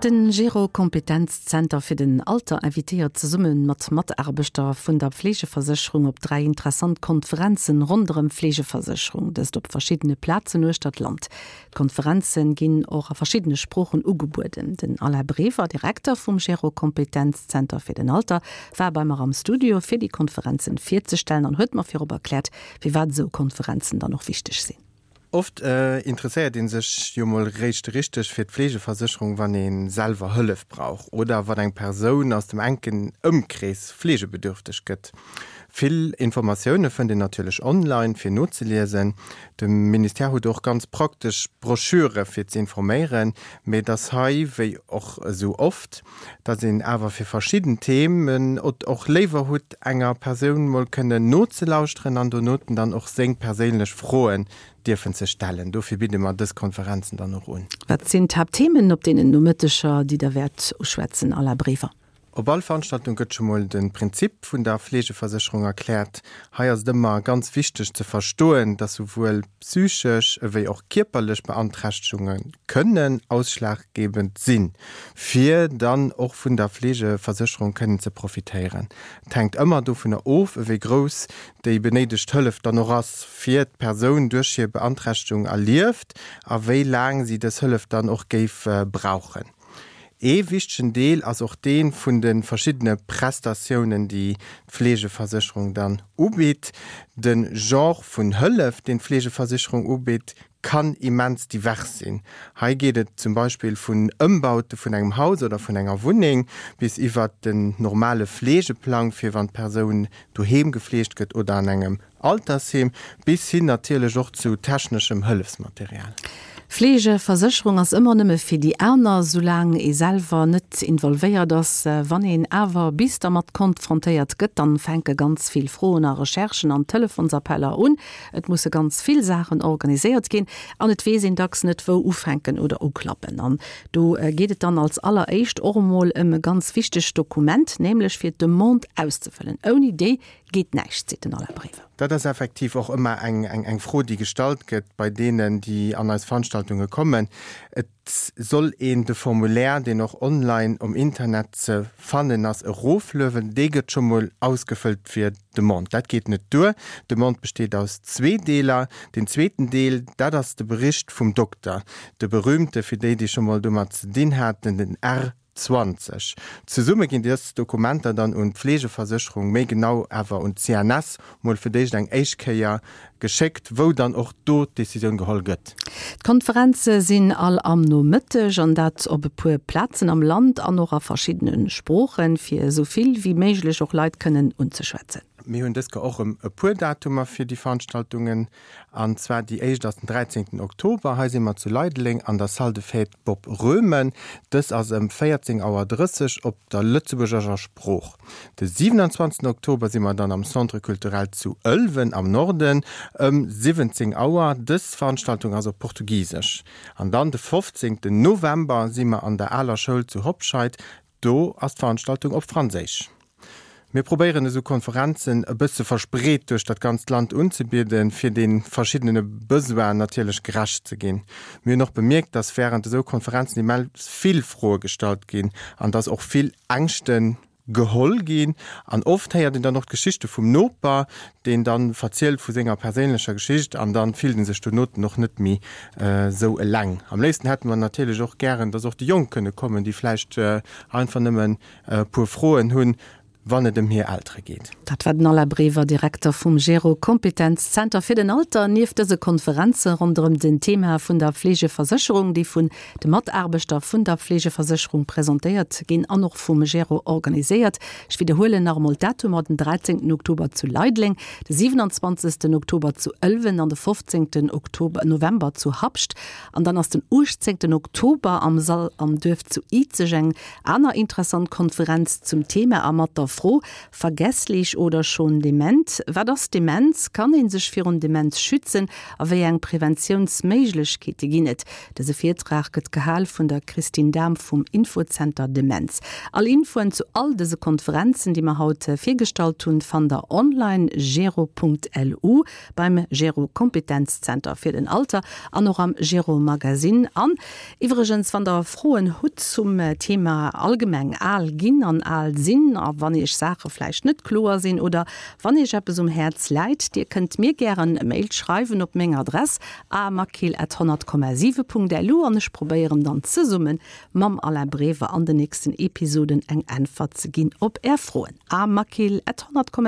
Den Gero Kompetenzzenter fir den Alter invitéiert zesumme mat Mataarbechter vun der Fleegeversécherung op 3 interessant Konferenzen ronderëm Fleegeversécherung, dëst op verschiddene Plazen uechter d'Land. D'Konferenzen ginn och a verschiddene Sproochen ugebueden. Den Alain Brever, Direkter vum Gero Kompetenzzenter fir den Alter, war bei mer am Studio fir déi Konferenzen virzestellen an huet mer virop erkläert, firwat esou Konferenzen dann och wichteg sinn. Oft interesséiert ee sech jo mol réischt richteg fir d'Fleegeversécherung, wann ee selwer Hëllef brauch oder wann eng Persoun aus dem enken Ëmkrees fleegebedürfteg gëtt. Vill Informatioune fënnt een natierlech online fir nozeliesen. De Ministère huet och ganz praktesch Broschüre fir ze informéieren, mee et ass hei, wéi och esou oft, dass een awer fir verschidden Themen et och léiwer hutt, enger Persoun mol kënnen nozelauschteren an donoten dann och seng perséinlech Froen dierfen ze stellen. Dofir bidde mer dës Konferenzen dann och un. Wat sinn d'Haaptthemen op deenen Nomëtteger, déi Der wäert uschwätzen, Alain Brever? Op all Veranstaltung gëtt scho mol de Prinzip vun der Fleegeversécherung erkläert. Hei ass et ëmmer ganz wichteg ze verstoen, dass souwuel psychesch ewéi och kierperlech Beanträchtegunge kënnen ausschlaggebend sinn, fir dann och vun der Fleegeversécherung kënnen ze profitéieren. Et hänkt ëmmer dovunner of, ewéi grouss déi benéidegt Hëllef dann och ass, fir d'Persoun duerch hir Beanträchtegung erlieft a wéi laang si dës Hëllef dann och géif brauchen. Ee wichtegen Deel ass och dee vun de verschiddene Prestatiounen, déi d'Fleegeversécherung dann ubitt. De Genre vun Hëllef, deen d'Fleegeversécherung ubitt, kann immens divers sinn. Hei geet et zum Beispill vun Ëmbaute vun engem Haus oder vun enger Wunneng bis iwwert den normale Fleegeplang, fir wann d'Persoun doheem gefleegt gëtt oder an engem Altersheem, bis hin natierlech och zu techneschem Hëllefsmaterial. Fleegeversécherung ass ëmmer nëmme fir déi aner, soulaang ee selwer net involvéiert ass. Wann een awer bis dermat konfrontéiert gëtt, dann fänke ganz vill Froen a Recherchen an Telefonsappeller un. Et musse ganz vill Saachen organiséiert ginn an et weess een dacks net wou ufänken oder uklappen. An do geet et dann als alleréischt och emol ëm e ganz wichtegt Dokument, nämlech fir d'Demande auszefëllen. Ouni déi geet näischt, seet den Alain Brever. Dat ass effektiv och ëmmer eng Fro, déi gestallt gëtt bei deenen, déi an eis Veranstaltunge kommen. Et soll een de Formulaire, deen och online um Internet ze fannen ass, erofluewen. Dee gëtt scho mol ausgefëllt fir d'Demande. Dat geet net duer. D'Demande besteet aus zwee Deeler. Deen zweeten Deel, dat ass de Bericht vum Dokter, de berühmte, fir déi, déi scho mol domat ze dinn haten, den R. 20. Zesumme ginn dës Dokumenter dann un d'Fleegeversécherung, méi genau awer un d'CNS, mol fir d'éischt eng éischt Kéier geschéckt, wou dann och do d'Decisioun geholl gëtt. D'Konferenze sinn all am Nomëtteg, an dat op e puer Plazen am Land an och a verschiddene Sproochen, fir esou vill wéi méiglech och Leit kënnen unzeschwätzen. Mir hunn dës Kéier och erëm e puer Datumer fir déi Veranstaltungen. An zwar déi éischt ass den 13 Oktober. Hei si mer zu Leideleng an der Salle de Fête Bob Roemen. Dës ass ëm 14 Auer 30 op der lëtzebuergescher Sprooch. De 27 Oktober si mer dann am Centre Culturel zu Ëlwen am Norden ëm 17 Auer. Dës Veranstaltung ass op Portugisesch. An dann de 15 November si mer an der Aler Schoul zu Hobscheid. Do ass d'Veranstaltung op Franséisch. Mir probéieren esou Konferenzen e bësse verspreet duerch dat ganzt Land unzebieden, fir de verschiddene Besoinen natierlech gerecht ze ginn. Mir hunn och bemierkt, dass wärend esou Konferenzen immens vill Froe gestallt ginn an dass och vill Ängschte geholl ginn. An oft héiert een dann och d'Geschichte vum Noper, deen dann verzielt vu senger perséinlecher Geschicht an dann fillt en sech donoten och net méi esou eleng. Am léifsten hätte mer natierlech och gären, dass och déi Jonk kënne kommen, déi vläicht einfach nëmmen e puer Froen hunn, wann et ëm hir Eltere geet. Dat war den Alain Brever, Direkter vum Gero Kompetenzzenter fir den Alter. Nieft dëse Konferenze ronderëm den Thema vun der Fleegeversécherung, déi vun de Mataarbechter vun der Fleegeversécherung presentéiert ginn an och vum Gero organiséiert. Ech widderhuelen nach emol d'Datumer, den 13 Oktober zu Leideleng, de 27 Oktober zu Ëlwen an de 15 Oktober, November zu Habscht. An dann ass den 18 Oktober am Sall am Duerf zu Izeg eng aner interessant Konferenz zum Thema a mat der. Fro, Vergesslich oder schon dement? Wat ass Demenz? Kann ee sech virun Demenz schützen? A wéi eng Preventiounsméiglechkeete ginn et? Dëse Virtrag gëtt gehal vun der Christine Dahm vum Infozenter Demenz. All Infoen zu all dëse Konferenzen, déi mer haut virgestallt hunn, fannt der online gero.lu. beim Gero Kompetenzzenter fir den Alter an och am Gero Magazine. An iwwregens, wann der Froen hutt zum Thema allgemeng al ginn an al sinn a wann iech Saache vläicht net kloer sinn oder wann iech eppes um Häerz läit, dir kënnt mir gären e Mail schreiwen op meng Adress amakill@100,7.lu an ech probéieren dann zesumme mam Alain Brever an den nächsten Episoden eng Äntwert ze ginn op är Froen. amakill@100,7.lu.